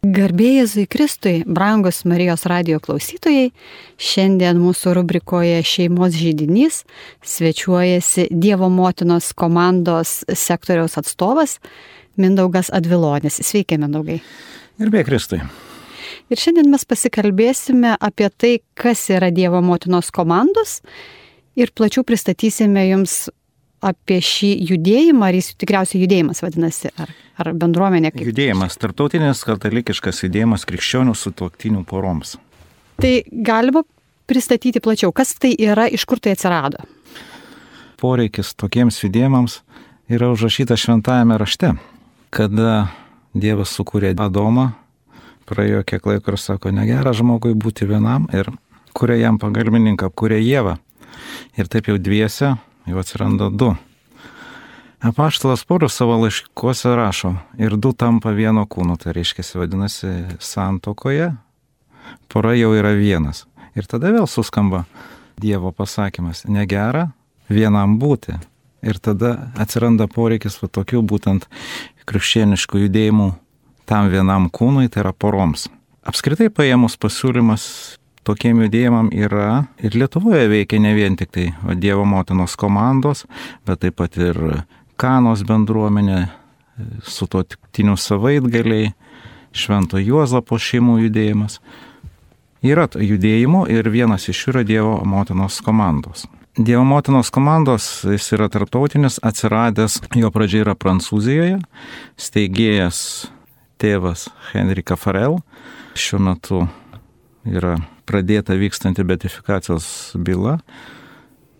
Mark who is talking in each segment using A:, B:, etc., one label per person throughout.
A: Garbė Jėzui Kristui, brangus Marijos radijo klausytojai, šiandien mūsų rubrikoje Šeimos židinys svečiuojasi Dievo motinos komandos sektoriaus atstovas Mindaugas Advilonis. Sveiki, Mindaugai.
B: Garbė Kristui.
A: Ir šiandien mes pasikalbėsime apie tai, kas yra Dievo motinos komandos ir plačiau pristatysime jums apie šį judėjimą, ar jis tikriausiai judėjimas vadinasi, ar bendruomenė kaip?
B: Judėjimas, tarptautinis katalikiškas judėjimas krikščionių sutuoktinių poroms.
A: Tai galima pristatyti plačiau, kas tai yra, iš kur tai atsirado?
B: Poreikis tokiems judėjimams yra užrašyta šventajame rašte, kada Dievas sukūrė Adomą, praėjo kiek laiko ir sako, negera žmogui būti vienam ir kuria jam pagalbininką, kuria Ievą. Ir taip jau dviese jau atsiranda du. Apaštalas Paulius savo laiškuose rašo, ir du tampa vieno kūno, tai reiškia, vadinasi, santuokoje pora jau yra vienas. Ir tada vėl suskamba Dievo pasakymas, negera vienam būti. Ir tada atsiranda poreikis tokių būtent krikščioniškų judėjimų tam vienam kūnui, tai yra poroms. Apskritai paėmus pasiūlymas tokiem judėjimam yra ir Lietuvoje veikia ne vien tik tai Dievo motinos komandos, bet taip pat ir Kanos bendruomenė, sutuoktinių savaitgaliai, Švento Juozapo šeimų judėjimas. Yra judėjimų ir vienas iš jų yra Dievo motinos komandos. Dievo motinos komandos, jis yra tarptautinis, atsiradęs, jo pradžia yra Prancūzijoje, steigėjas tėvas Henrika Farel, šiuo metu yra pradėta vykstanti beatifikacijos byla,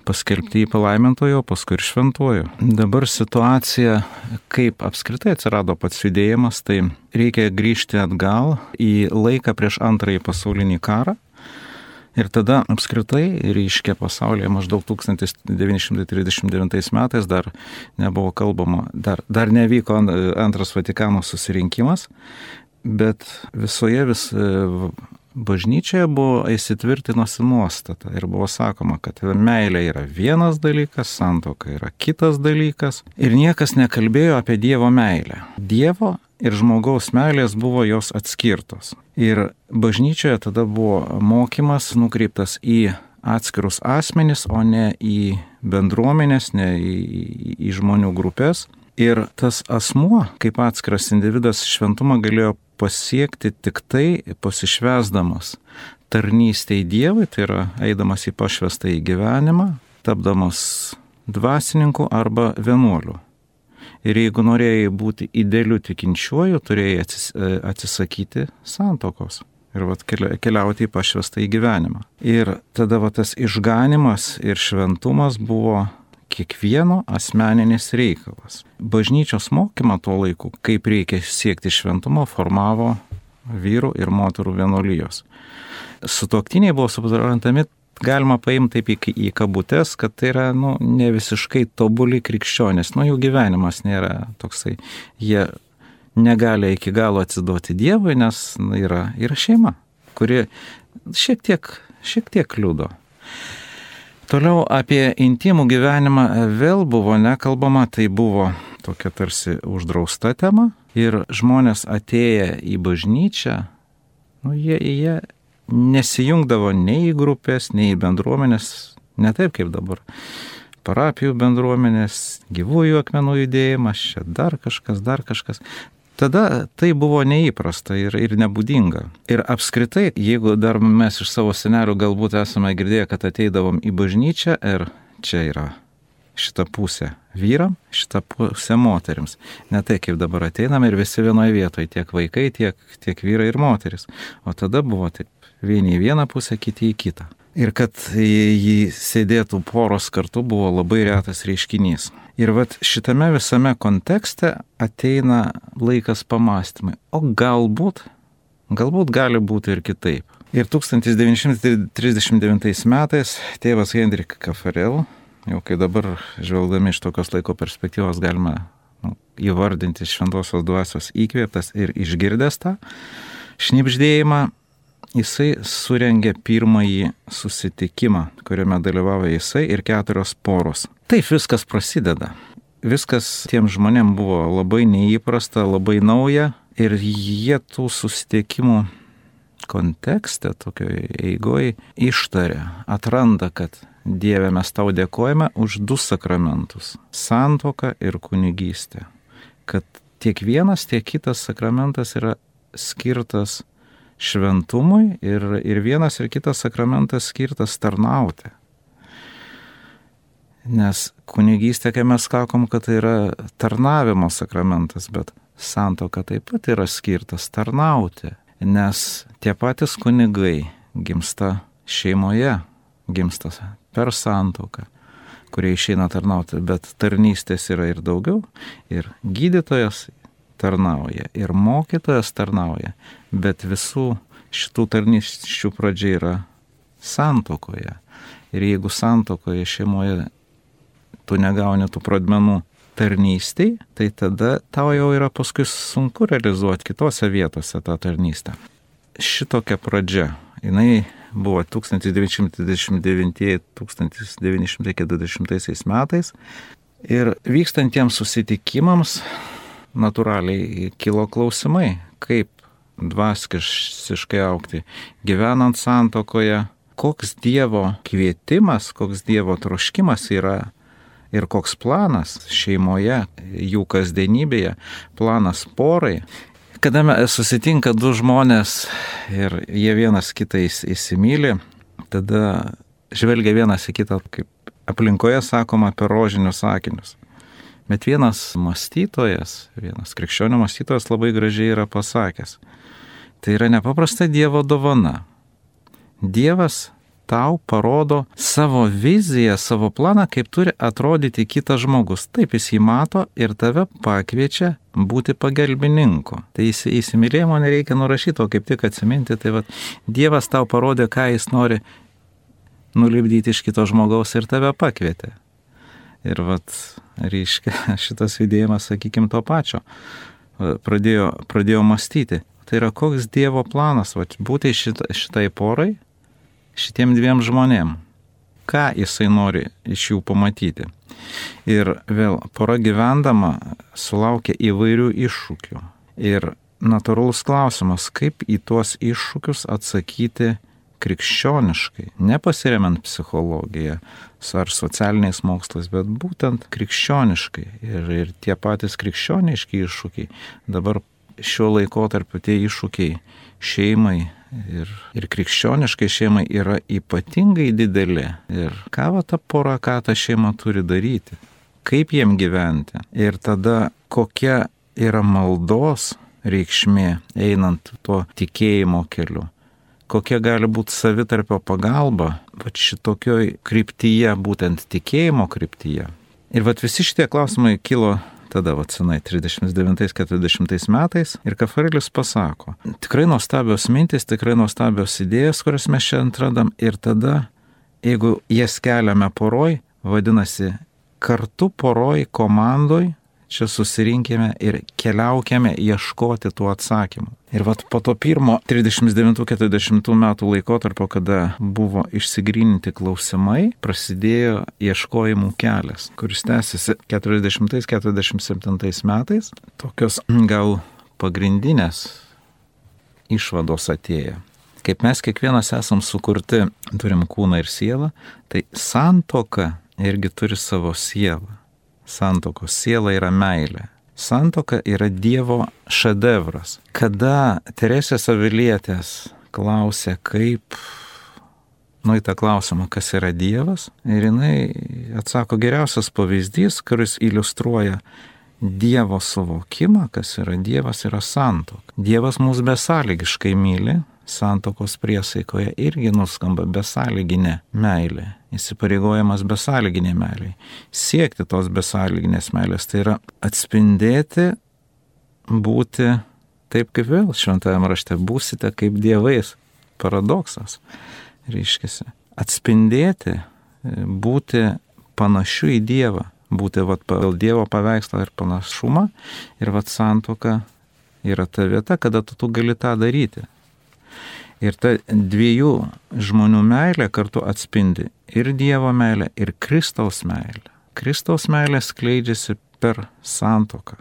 B: paskelbti į palaimintojo, paskui ir šventojo. Dabar situacija, kaip apskritai atsirado pats judėjimas, tai reikia grįžti atgal į laiką prieš Antrąjį pasaulinį karą. Ir tada apskritai reiškia pasaulyje maždaug 1939 metais dar nebuvo kalbama, dar nevyko Antras Vatikano susirinkimas, bet visoje bažnyčioje buvo įsitvirtinusi nuostata ir buvo sakoma, kad meilė yra vienas dalykas, santuoka yra kitas dalykas ir niekas nekalbėjo apie Dievo meilę. Dievo ir žmogaus meilės buvo jos atskirtos. Ir bažnyčioje tada buvo mokymas nukreiptas į atskirus asmenis, o ne į bendruomenės, ne į žmonių grupės. Ir tas asmuo, kaip atskiras individas, šventumą galėjo pasiekti tik tai pasišvesdamas tarnystei Dievui, tai yra eidamas į pašvestąjį gyvenimą, tapdamas dvasininku arba vienuoliu. Ir jeigu norėjai būti idealiu tikinčiuoju, turėjai atsisakyti santuokos ir keliauti į pašvestąjį gyvenimą. Ir tada tas išganimas ir šventumas buvo kiekvieno asmeninis reikalas. Bažnyčios mokymą tuo laiku, kaip reikia siekti šventumo, formavo vyrų ir moterų vienuolijos. Sutuoktiniai buvo suprantami, galima paimti taip į kabutes, kad tai yra ne visiškai tobuli krikščionys. Jų gyvenimas nėra toksai. Jie negali iki galo atsiduoti Dievui, nes yra šeima, kuri šiek tiek kliudo. Toliau apie intimų gyvenimą vėl buvo nekalbama, tai buvo tokia tarsi uždrausta tema ir žmonės atėję į bažnyčią, jie nesijungdavo nei į grupės, nei į bendruomenės, ne taip kaip dabar. Parapijų bendruomenės, gyvųjų akmenų judėjimas, čia dar kažkas. Tada tai buvo neįprasta ir nebūdinga. Ir apskritai, jeigu dar mes iš savo senelių galbūt esame girdėję, kad ateidavom į bažnyčią ir čia yra šita pusė vyram, šita pusė moterims. Ne tai kaip dabar ateinam ir visi vienoje vietoje, tiek vaikai, tiek vyrai ir moteris. O tada buvo taip, vieni į vieną pusę, kiti į kitą. Ir kad jį sėdėtų poros kartu buvo labai retas reiškinys. Ir šitame visame kontekste ateina laikas pamastymai. O galbūt gali būti ir kitaip. Ir 1939 metais tėvas Henrika Farel, jau kai dabar žvelgdami iš tokios laiko perspektyvos galima įvardinti šventosios dvasios įkvėptas ir išgirdęs tą šnibždėjimą, jisai surengė pirmąjį susitikimą, kuriame dalyvavo jisai ir 4 poros. Taip viskas prasideda. Viskas tiem žmonėm buvo labai neįprasta, labai nauja Ir jie tų susitikimų kontekste, tokioje eigoje ištaria, atranda, kad Dieve mes tau dėkojame už 2 sakramentus - santuoką ir kunigystę. Kad tiek vienas, tiek kitas sakramentas yra skirtas šventumui ir vienas ir kitas sakramentas skirtas tarnauti. Nes kunigystė, kai mes sakom, kad tai yra tarnavimo sakramentas, bet santuoka taip pat yra skirtas tarnauti. Nes tie patys kunigai gimsta šeimoje, gimsta per santuoką, kurie išeina tarnauti, bet tarnystės yra ir daugiau, ir gydytojas tarnauja, ir mokytojas tarnauja, bet visų šitų tarnysčių pradžia yra santuokoje. Ir jeigu santuokoje šeimoje tu negauni tų pradmenų tarnystėj, tai tada tau jau yra paskui sunku realizuoti kitose vietose tą tarnystę. Šitokia pradžia, jinai buvo 1929-1940 metais ir vykstantiems susitikimams natūraliai kilo klausimai, kaip dvasiškai augti, gyvenant santuokoje, koks Dievo kvietimas, koks Dievo troškimas yra ir koks planas šeimoje, jų kasdienybėje, planas porai. Kada susitinka 2 žmonės ir jie vienas kitą įsimyli, tada žvelgia vienas į kitą, kaip aplinkoje sakoma, per rožinius akinius. Bet vienas mąstytojas, vienas krikščionių mąstytojas labai gražiai yra pasakęs, tai yra nepaprasta Dievo dovana. Dievas tau parodo savo viziją, savo planą, kaip turi atrodyti kitas žmogus. Taip jis jį mato ir tave pakviečia būti pagalbininku. Tai įsimylėjimo nereikia nurašyti, o kaip tik atsiminti, tai vat, Dievas tau parodė, ką jis nori nulipdyti iš kito žmogaus ir tave pakvietė. Ir vat, reiškia, šitas judėjimas, sakykime, to pačio pradėjo mąstyti. Tai yra koks Dievo planas, vat, būti šitai porai, šitiem 2 žmonėm, ką jisai nori iš jų pamatyti. Ir vėl pora gyvendama sulaukia įvairių iššūkių. Ir natūralus klausimas, kaip į tuos iššūkius atsakyti krikščioniškai, nepasiremiant psichologiją ar socialiniais mokslais, bet būtent krikščioniškai. Ir tie patys krikščioniški iššūkiai, dabar šiuo laikotarpiu tie iššūkiai šeimai ir krikščioniškai šeimai yra ypatingai dideli. Ir ką va ta pora, ką ta šeima turi daryti, kaip jiem gyventi. Ir tada kokia yra maldos reikšmė einant tuo tikėjimo keliu. Kokia gali būti savitarpio pagalba, va šitokioj kryptyje, būtent tikėjimo kryptyje. Ir va visi šitie klausimai kilo tada, va senai, 39-40 metais, ir Kafarelis pasako, tikrai nuostabios mintis, tikrai nuostabios idėjas, kurias mes čia atradam, ir tada, jeigu jas keliame poroj, vadinasi, kartu poroj, komandoj, čia susirinkime ir keliaukime ieškoti tų atsakymų. Ir vat po to pirmo 39-40 metų laikotarpio, kada buvo išsigryninti klausimai, prasidėjo ieškojimų kelias, kuris tęsiasi 40-47 metais. Tokios gal pagrindinės išvados atėjo. Kaip mes kiekvienas esam sukurti, turim kūną ir sielą, tai santuoka irgi turi savo sielą. Santuokos siela yra meilė. Santuoka yra Dievo šedevras. Kada Teresės Avilietės klausė, kaip, į tą klausimą, kas yra Dievas, ir jinai atsako geriausias pavyzdys, kuris iliustruoja Dievo suvokimą, kas yra Dievas, yra santuoka. Dievas mus besąlygiškai myli, santuokos priesaikoje irgi nuskamba besąlyginė meilė. Įsipareigojimas besąlyginiai meiliai. Siekti tos besąlyginės meilės, tai yra atspindėti, būti taip kaip vėl šventajame rašte, būsite kaip dievais. Paradoksas. Reiškiasi. Atspindėti, būti panašiu į Dievą, būti pagal Dievo paveikslą ir panašumą, ir santuoka yra ta vieta, kada tu gali tą daryti. Ir ta 2 žmonių meilė kartu atspindi ir Dievo meilę, ir Kristaus meilę. Kristaus meilė skleidžiasi per santuoką.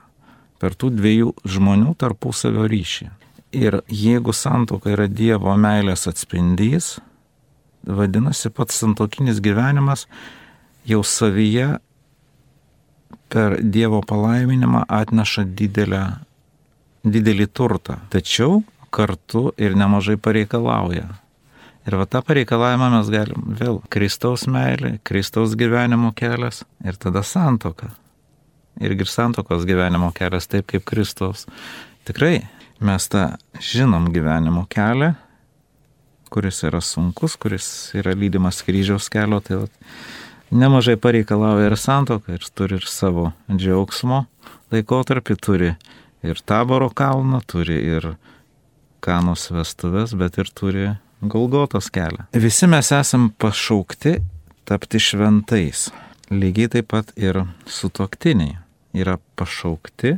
B: per tų dviejų žmonių tarpusavio ryšį. Ir jeigu santuoka yra Dievo meilės atspindys, vadinasi, pats santuokinis gyvenimas jau savyje per Dievo palaiminimą atneša didelį turtą, tačiau kartu ir nemažai pareikalauja. Ir va tą pareikalavimą mes galim vėl Kristaus meilė, Kristaus gyvenimo kelias ir tada santuoka. Irgi santuokos gyvenimo kelias taip kaip Kristaus. Tikrai mes tą žinom gyvenimo kelią, kuris yra sunkus, kuris yra lydimas kryžiaus kelio, tai nemažai pareikalauja ir santuoka, ir turi ir savo džiaugsmo laikotarpį, turi ir Taboro kalną, turi ir Kanos vestuves, bet ir turi Golgotos kelią. Visi mes esam pašaukti tapti šventais. Lygiai taip pat ir sutuoktiniai yra pašaukti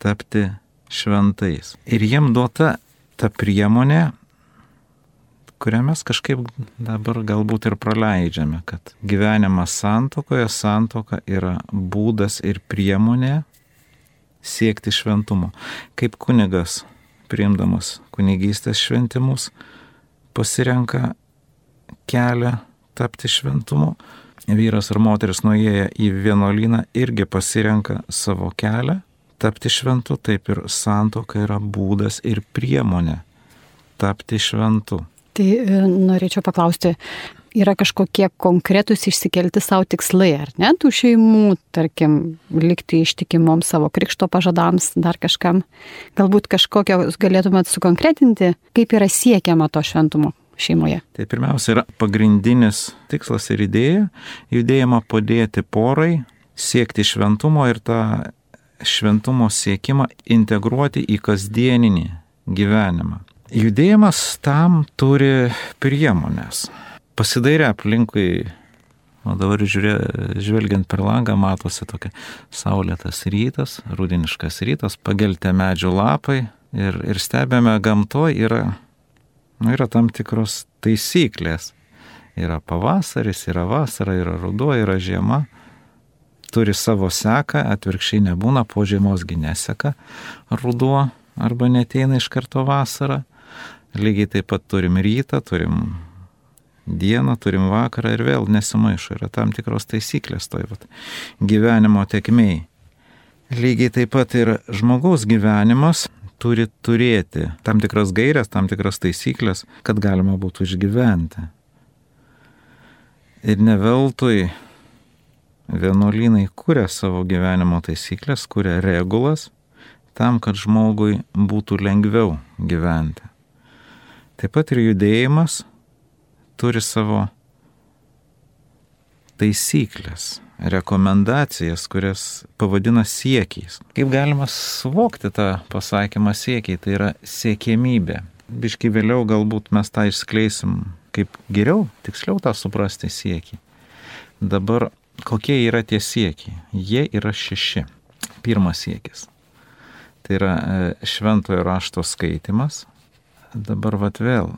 B: tapti šventais. Ir jiem duota ta priemonė, kurią mes kažkaip dabar galbūt ir praleidžiame, kad gyvenimas santuokoje, santuoka yra būdas ir priemonė siekti šventumo. Kaip kunigas, priimdamas kunigystės šventimus, pasirenka kelią tapti šventumu. Vyras ar moteris nuėję į vienuolyną irgi pasirenka savo kelią tapti šventu, taip ir santuoka yra būdas ir priemonė tapti šventu.
A: Tai norėčiau paklausti, yra kažkokie konkretūs išsikelti savo tikslai, ar ne, tų šeimų, tarkim, likti ištikimom savo krikšto pažadams, dar kažkam. Galbūt kažkokio galėtumėt sukonkretinti, kaip yra siekiama to šventumo šeimoje.
B: Tai pirmiausia yra pagrindinis tikslas ir idėja, judėjimą padėti porai, siekti šventumo ir tą šventumo siekimą integruoti į kasdieninį gyvenimą. Judėjimas tam turi priemonės. Pasidairę aplinkui, o dabar žvelgiant per langą, matosi tokia saulėtas rytas, rudeniškas rytas, pageltę medžių lapai ir stebėme gamtoje yra tam tikros taisyklės. Yra pavasaris, yra vasara, yra ruduo, yra žiema. Turi savo seką, atvirkščiai nebūna, po žiemosgi neseka ruduo arba neteina iš karto vasara. Lygiai taip pat turim rytą, turim dieną, turim vakarą ir vėl nesimaišo. Yra tam tikros taisyklės toj gyvenimo tėkmėj. Lygiai taip pat ir žmogaus gyvenimas turi turėti tam tikras gairias, tam tikras taisyklės, kad galima būtų išgyventi. Ir ne veltui vienuolynai kuria savo gyvenimo taisyklės, kuria regulas, tam, kad žmogui būtų lengviau gyventi. Taip pat ir judėjimas turi savo taisyklės, rekomendacijas, kurias pavadina siekiais. Kaip galima suvokti tą pasakymą siekiai, tai yra siekėmybė. Biškai vėliau galbūt mes tą išskleisim, kaip geriau, tiksliau tą suprasti siekį. Dabar kokie yra tie siekiai? Jie yra 6. Pirmas siekis. Tai yra šventojo rašto skaitimas. Dabar vėl,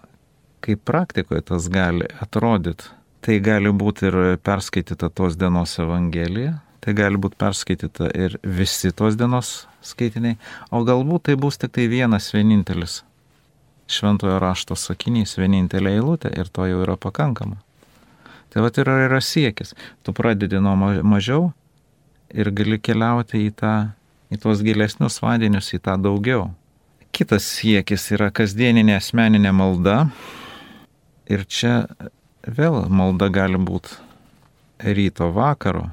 B: kaip praktikoje tas gali atrodyti, tai gali būti ir perskaityta tos dienos evangelija, tai gali būti perskaityta ir visi tos dienos skaitiniai, o galbūt tai bus tik tai vienas vienintelis šventojo rašto sakinys, vienintelė eilutė ir to jau yra pakankama. Tai yra siekis. Tu pradedi nuo mažiau ir gali keliauti į tuos gilesnius vandenius, į tą daugiau. Kitas siekis yra kasdieninė asmeninė malda. Ir čia vėl malda gali būti ryto vakaro.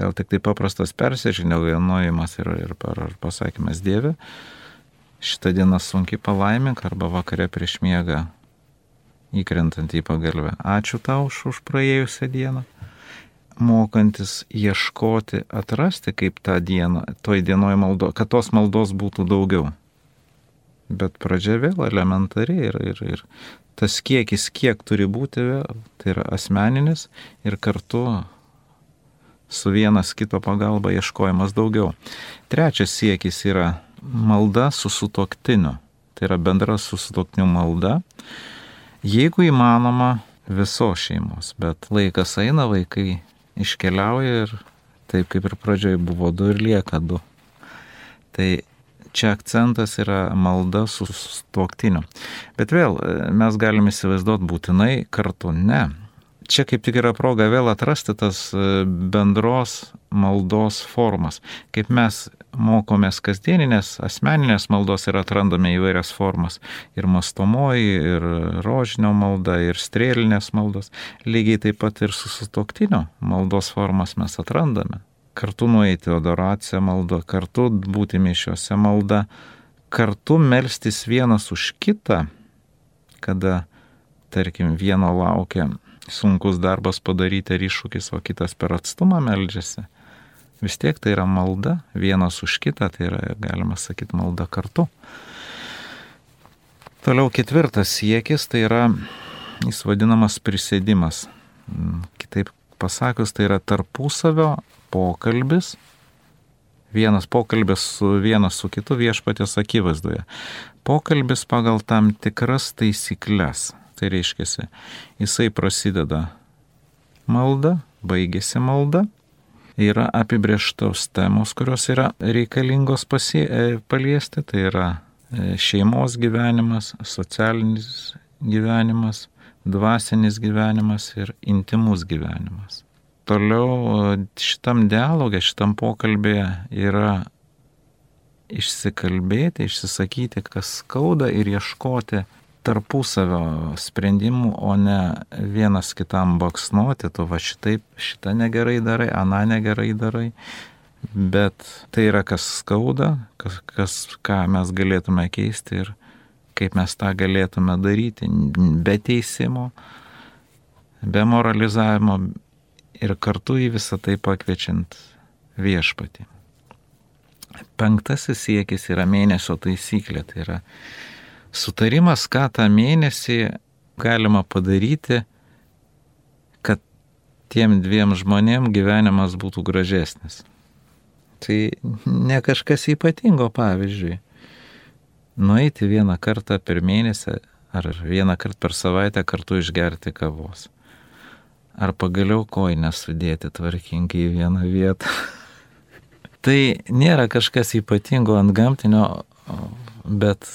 B: Gal tik tai paprastas persižiniaujimas ir pasakymas Dieve, šitą dieną sunkiai palaimink, arba vakare prieš miegą įkrentant į pagalvę. Ačiū tau už praėjusią dieną. Mokantis ieškoti, atrasti, kaip tą dieną, toj dienoj maldo, kad tos maldos būtų daugiau. Bet pradžia vėl elementariai ir tas kiekis, kiek turi būti, tai yra asmeninis ir kartu su vienas kito pagalba ieškojimas daugiau. Trečias siekis yra malda su sutuoktiniu. Tai yra bendra su sutuoktiniu malda. Jeigu įmanoma visos šeimos, bet laikas eina, vaikai iškeliauja ir taip kaip ir pradžioje buvo 2 ir lieka 2. Tai čia akcentas yra malda su sutuoktiniu. Bet vėl mes galime įsivaizduoti būtinai kartu. Ne. Čia kaip tik yra proga vėl atrasti tas bendros maldos formas. Kaip mes mokomės kasdieninės, asmeninės maldos ir atrandame įvairias formas. Ir mastomoji, ir rožinio malda, ir strėlinės maldos. Lygiai taip pat ir su sutuoktinio maldos formas mes atrandame. Kartu nueiti adoraciją maldą, kartu būti mišiuose malda, kartu melstis vienas už kitą, kada, tarkim, vieno laukia sunkus darbas padaryti ar iššūkis, o kitas per atstumą meldžiasi. Vis tiek tai yra malda, vienas už kitą, tai yra, galima sakyti, malda kartu. Toliau 4 siekis, tai yra, jis vadinamas prisėdimas. Kitaip pasakius, tai yra tarpusavio pokalbis, vienas pokalbis vienas su kitu viešpaties akivaizdoje. Pokalbis pagal tam tikras taisyklės. Tai reiškia, jisai prasideda malda, baigėsi malda, yra apibrėžtos temos, kurios yra reikalingos paliesti, tai yra šeimos gyvenimas, socialinis gyvenimas, dvasinis gyvenimas ir intimus gyvenimas. Toliau šitam dialogė, šitam pokalbėje yra išsikalbėti, išsisakyti, kas skauda ir ieškoti tarpusavio sprendimų, o ne vienas kitam baksnuoti, tu va šitaip, šitą negerai darai, aną negerai darai, bet tai yra kas skauda, ką mes galėtume keisti ir kaip mes tą galėtume daryti, be teisimo, be moralizavimo ir kartu į visą tai pakviečiant viešpatį. 5 siekis yra mėnesio taisyklė, tai yra sutarimas, ką tą mėnesį galima padaryti, kad tiem 2 žmonėm gyvenimas būtų gražesnis. Tai ne kažkas ypatingo, pavyzdžiui, nueiti 1 kartą per mėnesį ar 1 kartą per savaitę kartu išgerti kavos. Ar pagaliau kojines sudėti tvarkingai į vieną vietą. Tai nėra kažkas ypatingo ant gamtinio, bet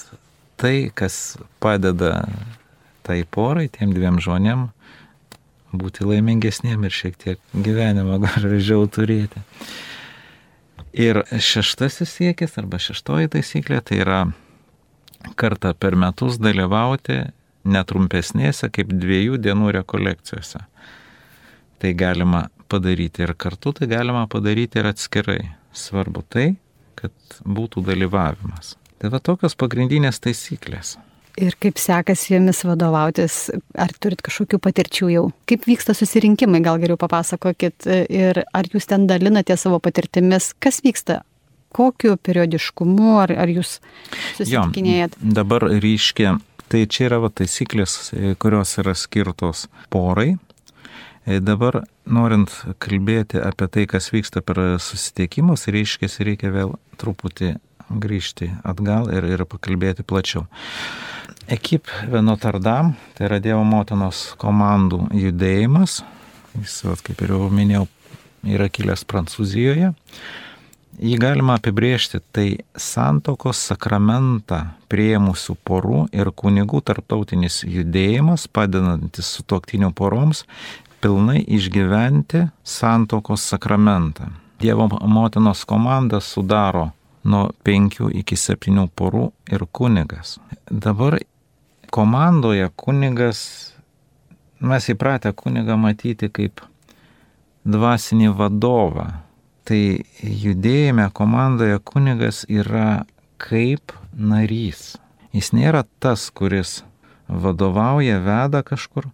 B: tai, kas padeda tai porai, tiem 2 žmonėm būti laimingesniem ir šiek tiek gyvenimą gražiau turėti. Ir 6 siekis arba 6 taisyklė, tai yra kartą per metus dalyvauti netrumpesnėse kaip 2 dienų rekolekcijose. Tai galima padaryti ir kartu, tai galima padaryti ir atskirai. Svarbu tai, kad būtų dalyvavimas. Tai va tokios pagrindinės taisyklės.
A: Ir kaip sekasi jomis vadovautis, ar turit kažkokių patirčių jau? Kaip vyksta susirinkimai, gal geriau papasakokit, ir ar jūs ten dalinate savo patirtimis, kas vyksta, kokiu periodiškumu, ar jūs susitikinėjat?
B: Jo, dabar ryškia, tai čia yra va taisyklės, kurios yra skirtos porai. Dabar, norint kalbėti apie tai, kas vyksta per susitikimus, reikia vėl truputį grįžti atgal ir pakalbėti plačiau. Ekip Notre Dame, tai yra Dievo motinos komandų judėjimas, jis, kaip ir jau minėjau, yra kilęs Prancūzijoje. Jį galima apibrėžti, tai santuokos sakramentą priėmusių porų ir kunigų tarptautinis judėjimas, padedantis sutuoktinių poroms pilnai išgyventi santuokos sakramentą. Dievo motinos komanda sudaro nuo 5 iki 7 porų ir kunigas. Dabar komandoje kunigas, mes įpratę kunigą matyti kaip dvasinį vadovą. Tai judėjime komandoje kunigas yra kaip narys. Jis nėra tas, kuris vadovauja, veda kažkur.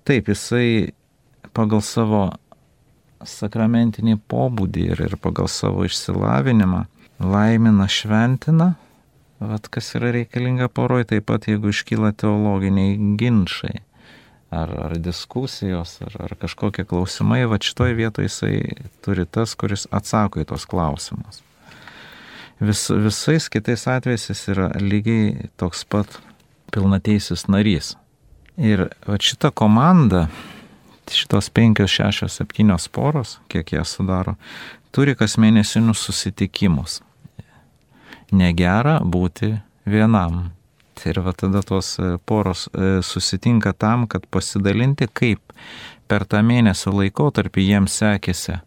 B: Taip, jisai pagal savo sakramentinį pobūdį ir pagal savo išsilavinimą laimina, šventina, kas yra reikalinga poroj, taip pat jeigu iškyla teologiniai ginčai ar diskusijos, ar kažkokie klausimai, šitoj vietoje jisai turi tas, kuris atsako į tos klausimus. Visais kitais atvejais jis yra lygiai toks pat pilnateisis narys. Ir šita komanda šitos 5, 6, 7 poros, kiek jie sudaro, turi kas mėnesinius susitikimus. Negera būti vienam. Ir va tada tos poros susitinka tam, kad pasidalinti, kaip per tą mėnesio laikotarpį jiems sekėsi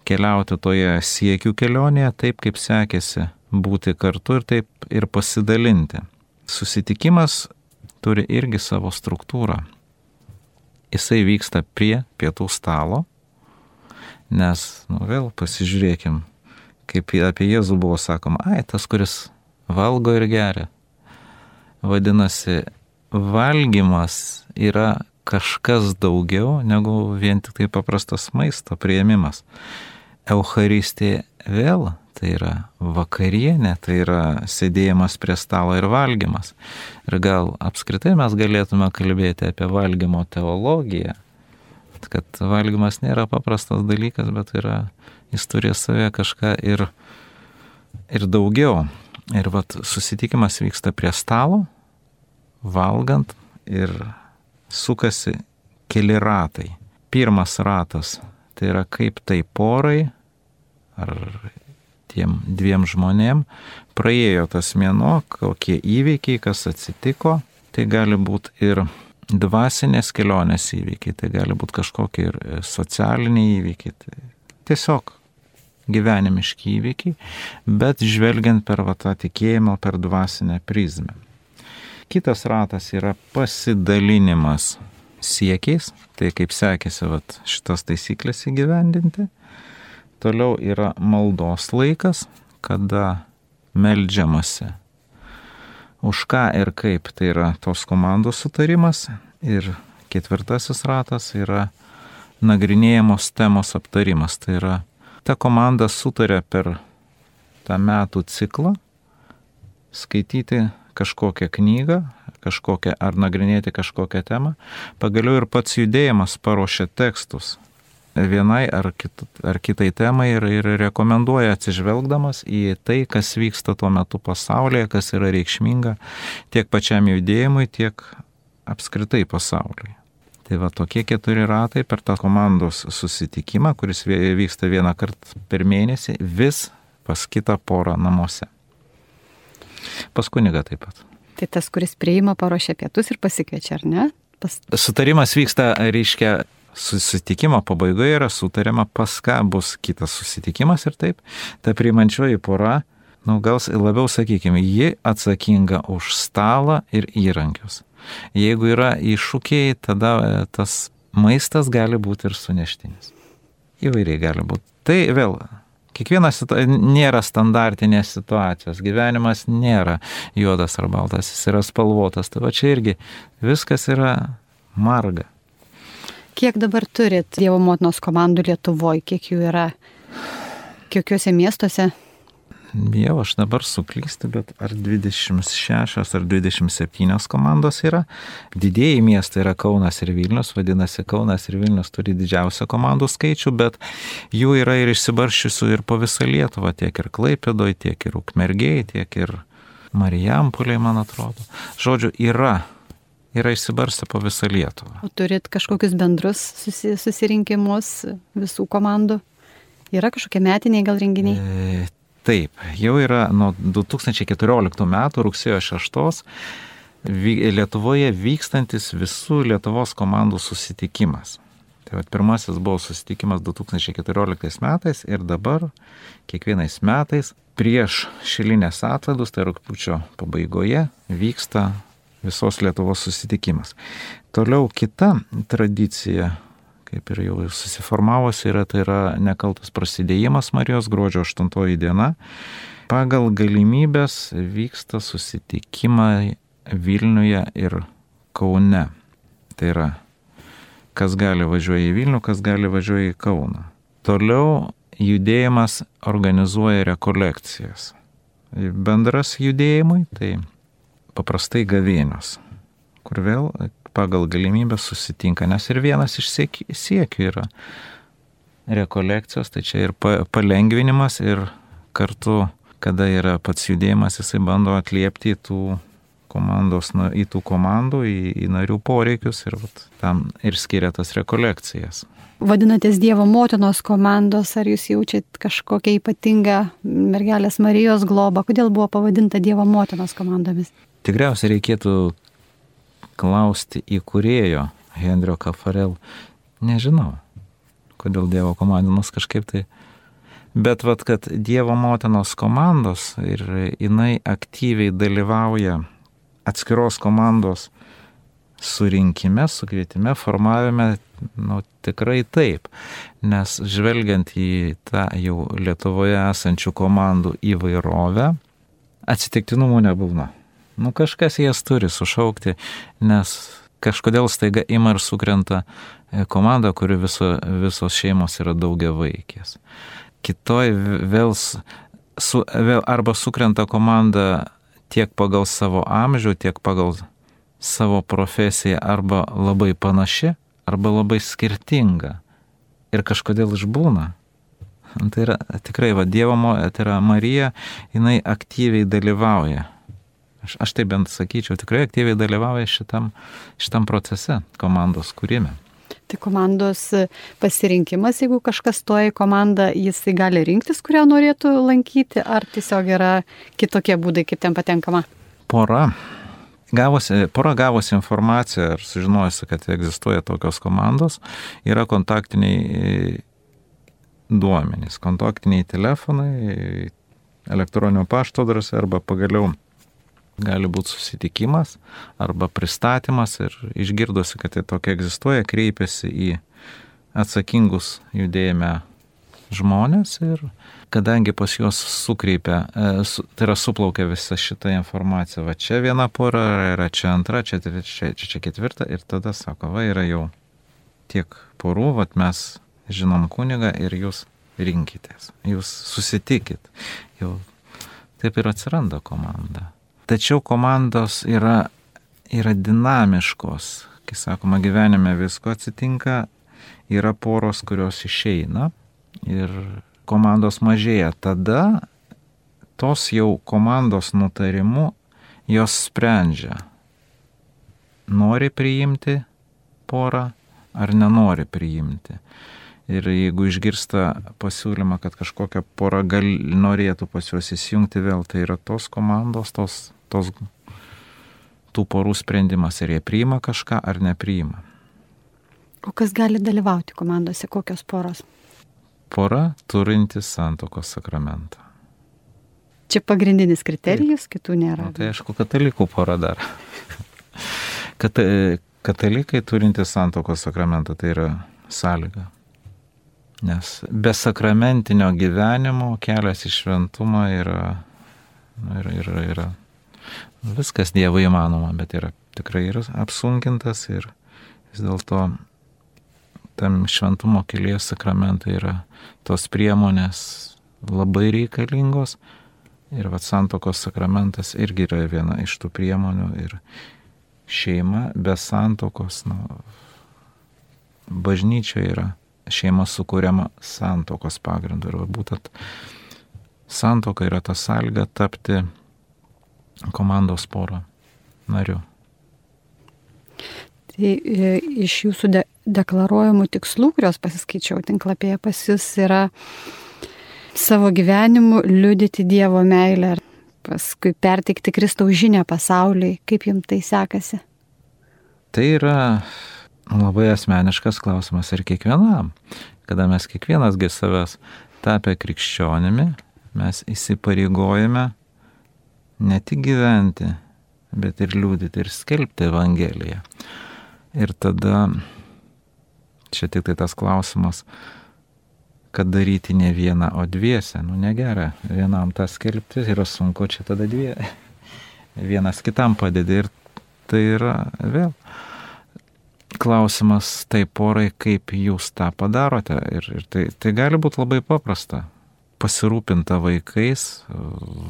B: keliauti toje siekių kelionėje, taip kaip sekėsi būti kartu ir taip ir pasidalinti. Susitikimas turi irgi savo struktūrą. Jisai vyksta prie pietų stalo, nes, vėl pasižiūrėkim, kaip apie Jėzų buvo sakoma, tas, kuris valgo ir geria. Vadinasi, valgymas yra kažkas daugiau negu vien tik tai paprastas maisto priėmimas. Eucharistija vėl tai yra vakarienė, tai yra sėdėjimas prie stalo ir valgymas. Ir gal apskritai mes galėtume kalbėti apie valgymo teologiją, kad valgymas nėra paprastas dalykas, bet jis turi savę kažką ir daugiau. Ir susitikimas vyksta prie stalo, valgant ir sukasi keli ratai. Pirmas ratas tai yra kaip tai porai ar tiem 2 žmonėm praėjo tas mėnuo, kokie įvykiai, kas atsitiko. Tai gali būti ir dvasinės kelionės įvykiai, tai gali būti kažkokie ir socialiniai įvykiai. Tai tiesiog gyvenimiški įvykiai, bet žvelgiant per tą tikėjimą, per dvasinę prizmę. Kitas ratas yra pasidalinimas siekiais, tai kaip sekėsi šitas taisyklės įgyvendinti. Toliau yra maldos laikas, kada meldžiamasi. Už ką ir kaip, tai yra tos komandos sutarimas. Ir 4 ratas yra nagrinėjamos temos aptarimas, tai yra ta komanda sutarė per tą metų ciklą skaityti kažkokią knygą, ar nagrinėti kažkokią temą. Pagaliau ir pats judėjimas paruošia tekstus vienai ar kitai temai ir rekomenduoja atsižvelgdamas į tai, kas vyksta tuo metu pasaulyje, kas yra reikšminga tiek pačiam judėjimui, tiek apskritai pasaulyje. Tai tokie 4 ratai per tą komandos susitikimą, kuris vyksta 1 kartą per mėnesį, vis pas kitą porą namuose. Pas kunigą taip pat.
A: Tai tas, kuris priima, paruošia pietus ir pasikviečia, ar ne?
B: Sutarimas vyksta, reiškia, susitikimo pabaigoje yra sutariama, pas ką bus kitas susitikimas ir taip. Ta priimančioji pora, gal labiau sakykime, ji atsakinga už stalą ir įrankius. Jeigu yra iššūkiai, tada tas maistas gali būti ir suneštinis. Įvairiai gali būti. Tai vėl, kiekvienas nėra standartinės situacijos. Gyvenimas nėra juodas ar baltas, jis yra spalvotas. Tai čia irgi viskas yra marga.
A: Kiek dabar turit Dievo motinos komandų Lietuvoje? Kiek jų yra? Kokiuose miestuose?
B: Jau aš dabar suklystu, bet ar 26 ar 27 komandos yra. Didieji miestai yra Kaunas ir Vilnius, vadinasi Kaunas ir Vilnius turi didžiausią komandų skaičių, bet jų yra ir išsibarsčiusių ir po visą Lietuvą, tiek ir Klaipėdoje, tiek ir Ukmergėje, tiek ir Marijampolėje, man atrodo. Žodžiu, yra išsibarstę po visą Lietuvą.
A: O turit kažkokius bendrus susirinkimus visų komandų? Yra kažkokie metiniai gal renginiai?
B: Taip, jau yra nuo 2014 metų rugsėjo 6 Lietuvoje vykstantis visų Lietuvos komandų susitikimas. Tai pirmasis buvo susitikimas 2014 metais ir dabar kiekvienais metais prieš šilinės atlaidus, tai rugpjūčio pabaigoje, vyksta visos Lietuvos susitikimas. Toliau kita tradicija, kaip ir jau susiformavosi, tai yra nekaltas prasidėjimas Marijos gruodžio 8 diena. Pagal galimybės vyksta susitikimai Vilniuje ir Kaune. Tai yra, kas gali važiuoja į Vilnių, kas gali važiuoja į Kauną. Toliau judėjimas organizuoja rekolekcijas. Bendras judėjimui, tai paprastai gavėnios, kur vėl pagal galimybę susitinka, nes ir vienas iš siekių yra rekolekcijos, tai čia ir palengvinimas ir kartu, kada yra pats judėjimas, jisai bando atliepti tų į tų komandų, į narių poreikius ir tam ir skiria tas rekolekcijas.
A: Vadinatės Dievo motinos komandos, ar jūs jaučiat kažkokią ypatingą mergelės Marijos globą? Kodėl buvo pavadinta Dievo motinos komandomis?
B: Tikriausiai reikėtų klausti įkūrėjo Henrio Kafarel. Nežinau, kodėl Dievo komandos kažkaip tai. Bet kad Dievo motinos komandos ir jinai aktyviai dalyvauja atskiros komandos surinkime, sukvietime, formavime, tikrai taip. Nes žvelgiant į tą jau Lietuvoje esančių komandų įvairovę, atsitiktinumų nebūna. Kažkas jas turi sušaukti, nes kažkodėl staiga ima ir sukrenta komanda, kuri visos šeimos yra daugiavaikės. Kitoj vėl arba sukrenta komanda tiek pagal savo amžių, tiek pagal savo profesiją, arba labai panaši, arba labai skirtinga. Ir kažkodėl išbūna. Tai yra tikrai, Dievo, tai yra Marija, jinai aktyviai dalyvauja. Aš tai bent sakyčiau, tikrai aktyviai dalyvauja šitam procese, komandos kūrime.
A: Tai komandos pasirinkimas, jeigu kažkas stoja į komandą, jisai gali rinktis, kurią norėtų lankyti, ar tiesiog yra kitokie būdai, kaip ten patenkama?
B: Pora gavusi informaciją ir sužinojusi, kad egzistuoja tokios komandos, yra kontaktiniai duomenys, kontaktiniai telefonai, elektroninio pašto adresai arba pagaliau gali būti susitikimas arba pristatymas ir išgirdusi, kad tai tokia egzistuoja, kreipiasi į atsakingus judėjime žmonės ir kadangi pas juos tai yra suplaukia visa šita informacija, čia viena pora, yra čia antra, čia trečia, čia ketvirta ir tada sako, yra jau tiek porų, mes žinom kunigą ir jūs rinkitės, jūs susitikit, jau taip ir atsiranda komanda. Tačiau komandos yra dinamiškos, kai sakoma, gyvenime visko atsitinka, yra poros, kurios išeina ir komandos mažėja. Tada tos jau komandos nutarimu jos sprendžia, nori priimti porą ar nenori priimti. Ir jeigu išgirsta pasiūlymą, kad kažkokia pora norėtų pas juos įsijungti vėl, tai yra tos komandos, tų porų sprendimas, ar jie priima kažką ar nepriima.
A: O kas gali dalyvauti komandose, kokios poros?
B: Pora turinti santuokos sakramentą.
A: Čia pagrindinis kriterijus, kitų nėra.
B: Tai aišku, katalikų pora dar. Katalikai turinti santuokos sakramentą, tai yra sąlyga. Nes be sakramentinio gyvenimo kelias į šventumą yra viskas Dievo įmanoma, bet tikrai yra apsunkintas ir vis dėlto tam šventumo kelyje sakramentai yra tos priemonės labai reikalingos ir santuokos sakramentas irgi yra viena iš tų priemonių ir šeima be santuokos, bažnyčia yra šeima sukūriama santuokos pagrindu ir būtent santuoka yra ta sąlyga tapti komandos poro nariu.
A: Tai iš jūsų deklaruojamų tikslų, kurios pasiskaičiau tinklapyje pas jūs, yra savo gyvenimu liudyti Dievo meilę ir paskui perteikti Kristaus žinią pasauliui. Kaip jums tai sekasi?
B: Tai yra labai asmeniškas klausimas ir kiekvienam. Kada mes kiekvienasgi savęs tapę krikščionimi, mes įsipareigojame ne tik gyventi, bet ir liudyti ir skelbti Evangeliją. Ir tada, čia tik tai tas klausimas, kad daryti ne vieną, o dviese. Negera, vienam tą skelbti yra sunku, čia tada vienas kitam padedi ir tai yra vėl klausimas tai porai, kaip jūs tą padarote. Ir tai gali būti labai paprasta. Pasirūpinta vaikais,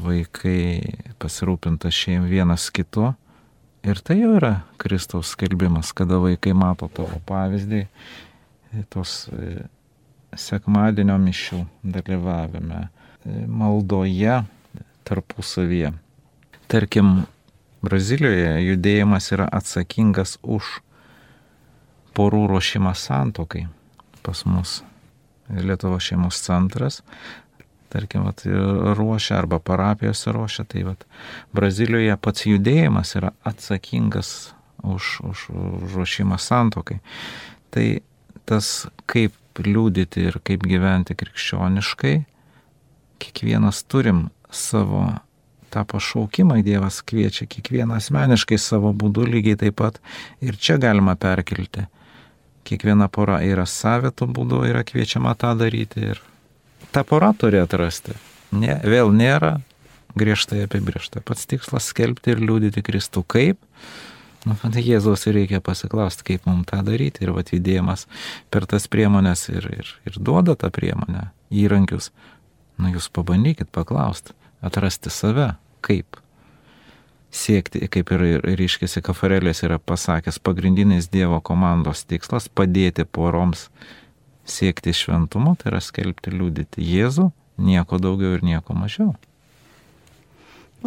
B: vaikai pasirūpinta vienas kitu. Ir tai jau yra Kristaus skelbimas, kada vaikai mato tavo pavyzdį, tos sekmadienio mišių dalyvavime, maldoje tarpusavyje. Tarkim, Brazilijoje judėjimas yra atsakingas už porų ruošimą santuokai. Pas mus Lietuvos šeimos centras, tarkim, ruošia arba parapijose ruošia, tai Brazilijoje pats judėjimas yra atsakingas už ruošimą santuokai. Tai tas, kaip liudyti ir kaip gyventi krikščioniškai, kiekvienas turim savo tą pašaukimą, Dievas kviečia kiekvieną asmeniškai savo būdu, lygiai taip pat ir čia galima perkelti. Kiekviena pora yra savitų būdų, yra kviečiama tą daryti ir ta pora turi atrasti. Vėl nėra griežtai apibrėžta. Pats tikslas skelbti ir liudyti Kristų. Kaip? Jėzaus reikia pasiklausti, kaip mums tą daryti. Ir judėjimas per tas priemonės ir duoda tą priemonę, įrankius. Jūs pabandykit paklausti, atrasti save. Kaip? Siekti, kaip ir ryškiasi Kafarelės yra pasakęs, pagrindinis Dievo komandos tikslas padėti poroms siekti šventumo, tai yra skelbti, liudyti Jėzų, nieko daugiau ir nieko mažiau.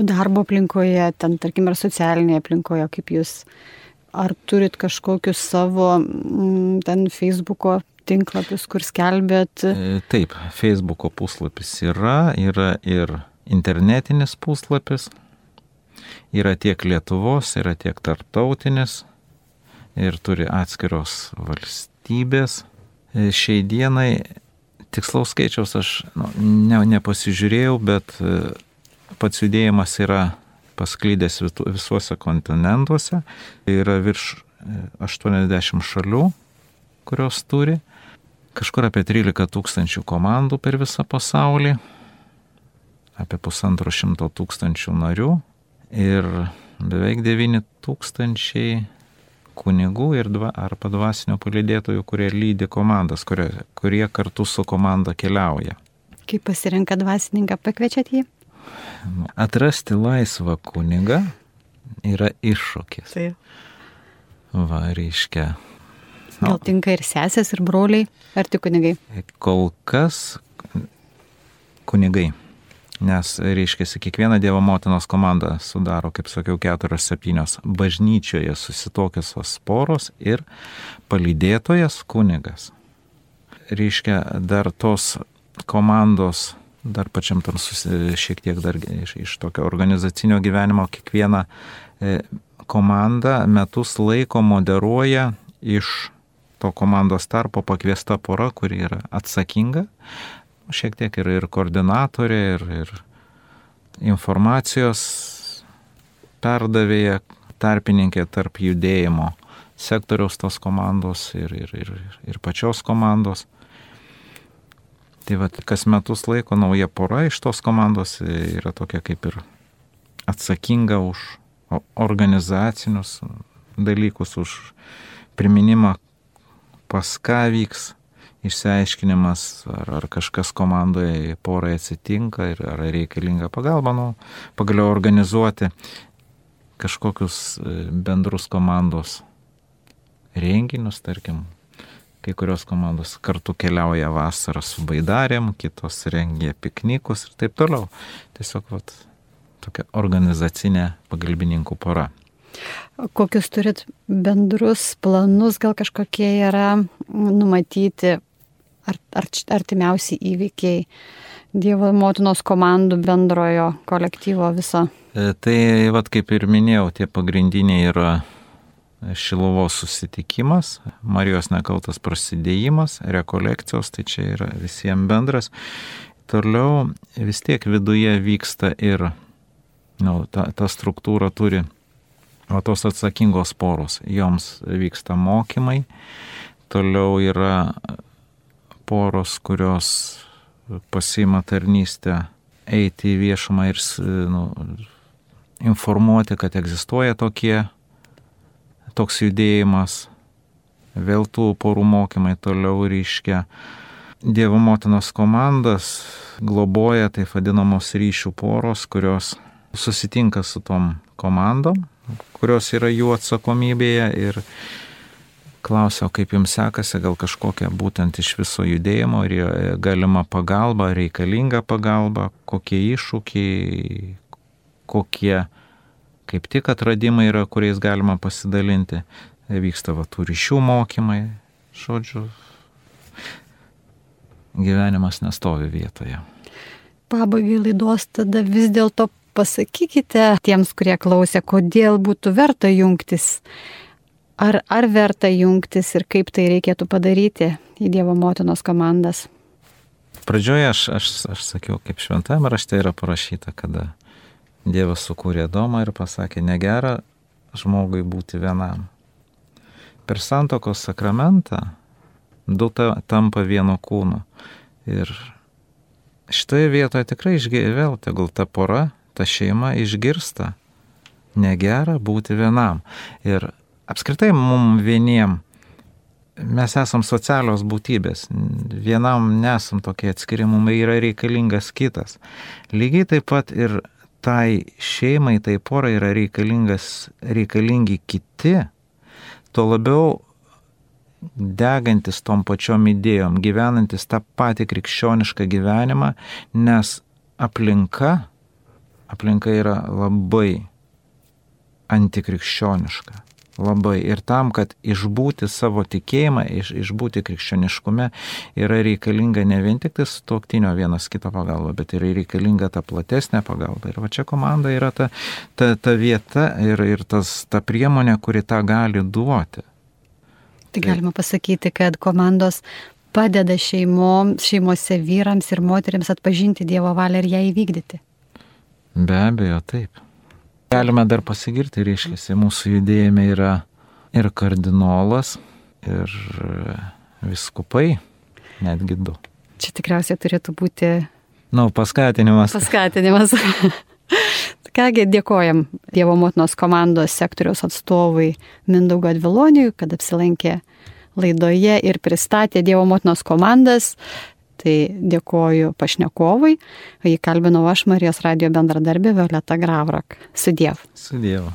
A: O darbo aplinkoje, ten, tarkim, ar socialinėje aplinkoje, kaip jūs, ar turit kažkokius savo ten Facebooko tinklapius, kur skelbėt?
B: Taip, Facebooko puslapis yra ir internetinis puslapis. Yra tiek Lietuvos, yra tiek tarptautinis ir turi atskiros valstybės. Šiai dienai tikslaus skaičiaus aš nepasižiūrėjau, bet pats judėjimas yra pasklydęs visuose kontinentuose. Yra virš 80 šalių, kurios turi. Kažkur apie 13 000 komandų per visą pasaulį, apie 150 000 narių. Ir beveik 9 000 kunigų arba dvasinio palydėtojų, kurie lydi komandas, kurie kartu su komanda keliauja.
A: Kaip pasirenka dvasininką, pakviečiat jį?
B: Atrasti laisvą kunigą yra iššūkis.
A: Taip.
B: Reiškia.
A: Gal tinka ir sesės, ir broliai, ar tik kunigai?
B: Kol kas kunigai. Nes, reiškia, kiekviena Dievo motinos komanda sudaro, kaip sakiau, 4-7 bažnyčioje susitokiusios poros ir palydėtojas kunigas. Reiškia, dar tos komandos, dar pačiam tam šiek tiek dar iš tokio organizacinio gyvenimo, kiekviena komanda metus laiko moderuoja iš to komandos tarpo pakviesta pora, kuri yra atsakinga. Šiek tiek ir koordinatorė, ir informacijos perdavėja, tarpininkė tarp judėjimo sektoriaus tos komandos ir pačios komandos. Tai kas metus laiko nauja pora iš tos komandos yra tokia kaip ir atsakinga už organizacinius dalykus, už priminimą, pas ką vyks išsiaiškinimas, ar kažkas komandoje porai atsitinka ir ar reikalinga pagalba, pagaliau organizuoti kažkokius bendrus komandos renginius, tarkim, kai kurios komandos kartu keliauja vasarą su baidarėm, kitos rengia piknikus ir taip toliau. Tiesiog tokia organizacinė pagalbininkų pora.
A: Kokius turit bendrus planus, gal kažkokie yra numatyti artimiausi įvykiai Dievo motinos komandų bendrojo kolektyvo viso?
B: Tai kaip ir minėjau, tie pagrindiniai yra Šiluvos susitikimas, Marijos nekaltas prasidėjimas, rekolekcijos, tai čia yra visiems bendras. Toliau vis tiek viduje vyksta ir ta struktūra turi tos atsakingos poros, joms vyksta mokymai. Toliau yra poros, kurios pasiima tarnystę eiti į viešumą ir informuoti, kad egzistuoja toks judėjimas. Vėl tų porų mokymai toliau reiškia. Dievo motinos komandas globoja taip vadinamos ryšių poros, kurios susitinka su tom komandom, kurios yra jų atsakomybėje ir klausia, kaip jums sekasi, gal kažkokia būtent iš viso judėjimo, ar galima pagalba, reikalinga pagalba, kokie iššūkiai, kaip tik atradimai yra, kuriais galima pasidalinti. Vyksta tų ryšių mokymai, žodžiu, gyvenimas nestovi vietoje.
A: Pabaigai laidos tada vis dėlto pasakykite tiems, kurie klausė, kodėl būtų verta jungtis. Ar verta jungtis ir kaip tai reikėtų padaryti į Dievo motinos komandas?
B: Pradžioje aš sakiau, kaip šventajame rašte yra parašyta, kada Dievas sukūrė Adomą ir pasakė, negera žmogui būti vienam. Per santuokos sakramentą du tampa vieno kūno. Ir šitoje vietoje tikrai vėl tegul ta pora, ta šeima išgirsta, negera būti vienam. Ir apskritai mums vieniem, mes esam socialios būtybės, vienam nesam tokie atskiri, mums yra reikalingas kitas. Lygiai taip pat ir tai šeimai, tai porai yra reikalingi kiti, tuo labiau degantis tom pačiom idėjom, gyvenantis tą patį krikščionišką gyvenimą, nes aplinka yra labai antikrikščioniška. Labai. Ir tam, kad išbūti savo tikėjimą, išbūti krikščioniškume, yra reikalinga ne vien tik sutuoktinio vienas kito pagalba, bet yra reikalinga ta platesnė pagalba. Ir va čia komanda yra ta vieta ir ta priemonė, kuri tą gali duoti.
A: Tai galima pasakyti, kad komandos padeda šeimose vyrams ir moteriams atpažinti Dievo valią ir ją įvykdyti.
B: Be abejo, taip. Galime dar pasigirti, reiškia, mūsų judėjime yra ir kardinolas, ir viskupai, netgi 2.
A: Čia tikriausiai turėtų būti...
B: paskatinimas.
A: Paskatinimas. Kągi, dėkojam Dievo motinos komandos sektoriaus atstovui Mindaugui Adviloniui, kad apsilankė laidoje ir pristatė Dievo motinos komandas. Tai dėkoju pašnekovui. Jį kalbinau aš, Marijos radijo bendradarbė Violeta Gravrak. Sudiev.
B: Sudiev.